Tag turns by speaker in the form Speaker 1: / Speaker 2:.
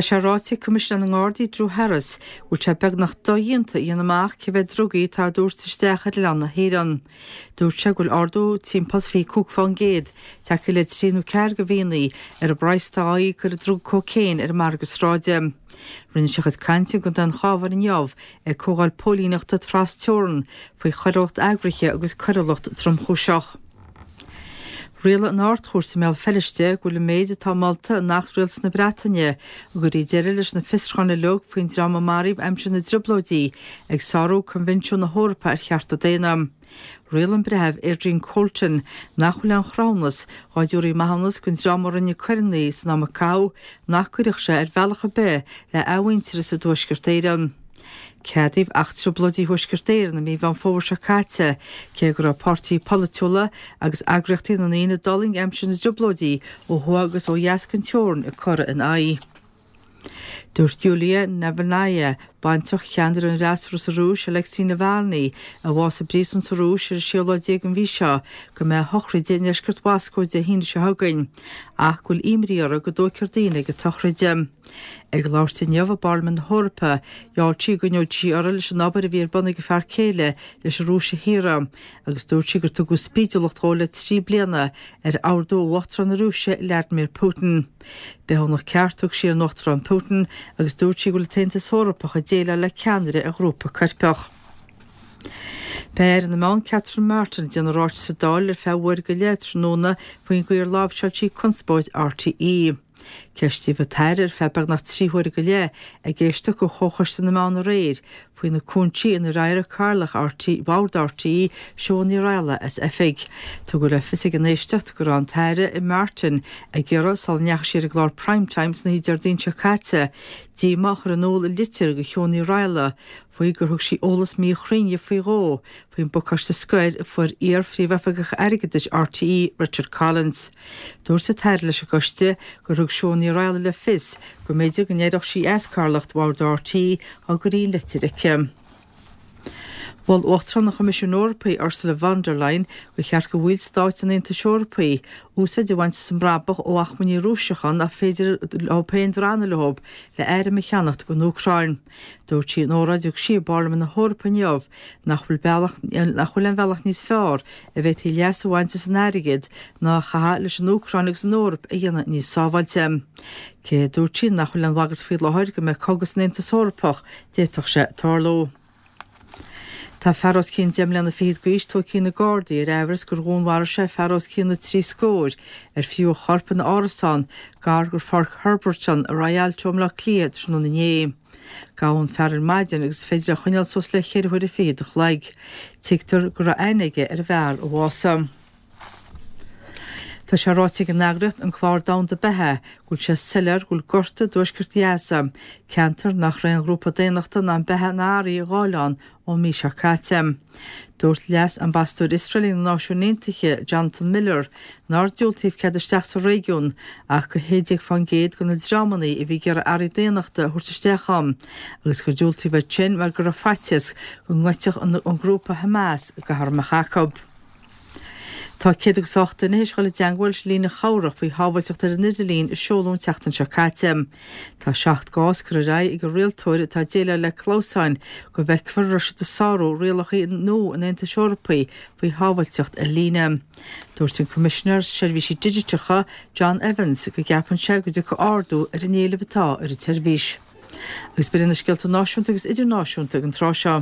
Speaker 1: Tá sé ráite ag Coimisinéir na nGardaí Drew Harris go bhfuil sé beagnach dodhéanta a dhéanamh amach cé mhéad drugaí atá á dtabhairt isteach ar oileán na hÉireann. Dúirt sé go bhfuil ardú timpeall is 25% tagtha le trí nó ceathair de mhíonna ar an bpraghas atá á íoc ar an druga cócaon ar an margadh sráide. Rinne sé a chuid cainte i gContae an Chabháin inniu ag comhdháil póilíneachta tras-teorann faoi choiriúlacht eagraithe agus coiriúlacht tromchúiseach. Rialaigh an Ard-Chúirt i mBéal Feirste go bhfuil an méid atá molta in Acht Rialtas na Breataine a gcuirfidh deireadh leis na fiosrúcháin uilig faoin dream a maraíodh aimsir na dTrioblóidí ag sárú Coinbhinsiún na hEorpa ar Chearta Daonna. Rialaigh an Breitheamh Adrian Colton nach bhfuil aon chruthúnas dhá dtabharfaí maithiúnas don dream a rinne coireanna san am a caitheadh nach gcuirfeadh sé ar bhealach ar bith le athmhuintearas i dTuaisceart Éireann. Ceadaíodh Acht Trioblóidí Thuaisceart Éireann i mí Mheán Fómhair seo caite, cé go raibh páirtithe polaitiúla agus eagraíochtaí na ndaoine a d'fhulaing aimsir na dTrioblóidí ó thuaidh agus ó dheas den teorainn ag cur ina aghaidh. Dúirt Yulia Navalnaya, baintreach cheannaire an fhreasúra sa Rúis, Alexei Navalny, a bhásaigh i bpríosún sa Rúis ar an séú lá déag den mhí seo, go mbeidh a shochraid i ndeisceart Mhoscó Dé hAoine seo chugainn, ach go bhfuil imní uirthi go dtóigfear daoine ag an tsochraid. Ag labhairt inniu i bParlaimint na hEorpa, gheall sí go gcoinneodh sí uirthi leis an obair a bhí ar bun ag a fear céile leis an Rúis a shaoradh, agus dúirt sí gur tugadh spídiúlacht dhó le 3 bliana ar ordú ó Uachtarán na Rúise, Vladimir Putin. Bithiúnach ceart a thug sí ar an Uachtarán Putin agus dúirt sí go bhfuil an tAontas Eorpach ag déileáil le ceannaire ar ghrúpa coirpeach. Beidh Aire na Meán Catherine Martin ag déanamh ráiteas sa Dáil ar feadh uair go leith tráthnóna faoin gcaoi ar láimhseáil sí conspóid RTÉ. Ceistíodh an tAire ar feadh beagnach 3 huaire go leith ag éisteacht do Chomhchoiste na Meán aréir faoi na cúinsí inar éirigh Cathaoirleach RTÉ, Bhord RTÉ, Siobhán Ní Raghallaigh as oifig. Tugadh le fios ag an éisteacht go raibh an tAire Martin ag iarraidh, sula ndeachaigh sí ar an gclár Prime Time san oíche Déardaoin seo caite, díomá a chur in iúl i litir do Shiobhán Ní Raghallaigh faoi gur thug sí eolas míchruinn di faoi dhó faoin bpacáiste scoir a fuair iar-Phríomhoifigeach Airgeadais RTÉ, Richard Collins. Dúirt an tAire leis an gcoiste gur thug Siún Ní Raghallaigh le fios go mb'fhéidir go n-éireodh sí as cathaoirleacht Bhord RTÉ dá gcuirfí an litir chuici. Mhol Uachtarán an Choimisiúin Eorpaigh, Ursula von der Leyen, gur cheart do bhaill stáit an Aontais Eorpaigh úsáid a bhaint as an mbrabach ó achmainní Rúiseacha nach féidir leo féin drannadh leo le airm a cheannacht don Úcráin. Dúirt sí in óráid a thug sí i bParlaimint na hEorpa inniu nach bhfuil bealach nach bhfuil aon bhealach níos fearr a bhféadfaí leas a bhaint as an airgead ná a chaitheamh leis an Úcráin agus an Eoraip a dhéanamh níos sábháilte. Cé, a dúirt sí, nach bhfuil aon bhagairt faoi láthair go mbeidh cogadh san Aontas Eorpach, d'fhéadfadh sé tarlú. Tá fear os cionn deich mbliana fichead d'aois tógtha ag na Gardaí ar aimhreas gur dhúnmharaigh sé fear os cionn na dtrí scór ar fríothadh a chorp ina árasán gar do Pháirc Herberton i Rialto i mBleá Cliath tráthnóna inné. Gabhadh an fear ar maidin agus is féidir é a choinneáil suas le ceithre huaire fichead a chloig. Tuigtear go raibh aithne aige ar an bhfear a bhásaigh. Tá sé ráite ag an eagraíocht An Clár Domhanda Beatha go bhfuil sé soiléir go bhfuil gorta i dtuaisceart Ghaza, ceantar nach raibh aon ghrúpa daonnachta in ann beatha ná earraí a ghabháil ann ón mí seo caite. Dúirt Leas-Ambasadóir Iosrael ag na Náisiúin Aontaithe, Jonathan Miller, nár diúltaíodh cead isteach sa réigiún ach do 16% de na dreamanna a bhí ag iarraidh earraí daonnachta a thabhairt isteach ann agus gur diúltaíodh iad sin mar go raibh faitíos go ngoidfeadh an grúpa Hamas gach arm a mbeadh acu. Tá 108 duine théis dhul i dteangmháil leis an líne chabhrach faoi shábháilteacht ar an idirlíon a seoladh an tseachtain seo caite. Tá 7 gcás curtha ar aghaidh ag an rialtóir atá ag déileáil le clamhsáin go bhfeicfear an raibh siad ag sárú rialacha nua an Aontais Eorpaigh faoi shábháilteacht ar líne. Dúirt an Coimisinéir Seirbhísí Digiteacha, John Evans, go gceapann sé go dtiocfaidh ardú ar an éileamh atá ar an tseirbhís. Agus b'in iad na scéalta náisiúnta agus idirnáisiúnta ag an tráth seo.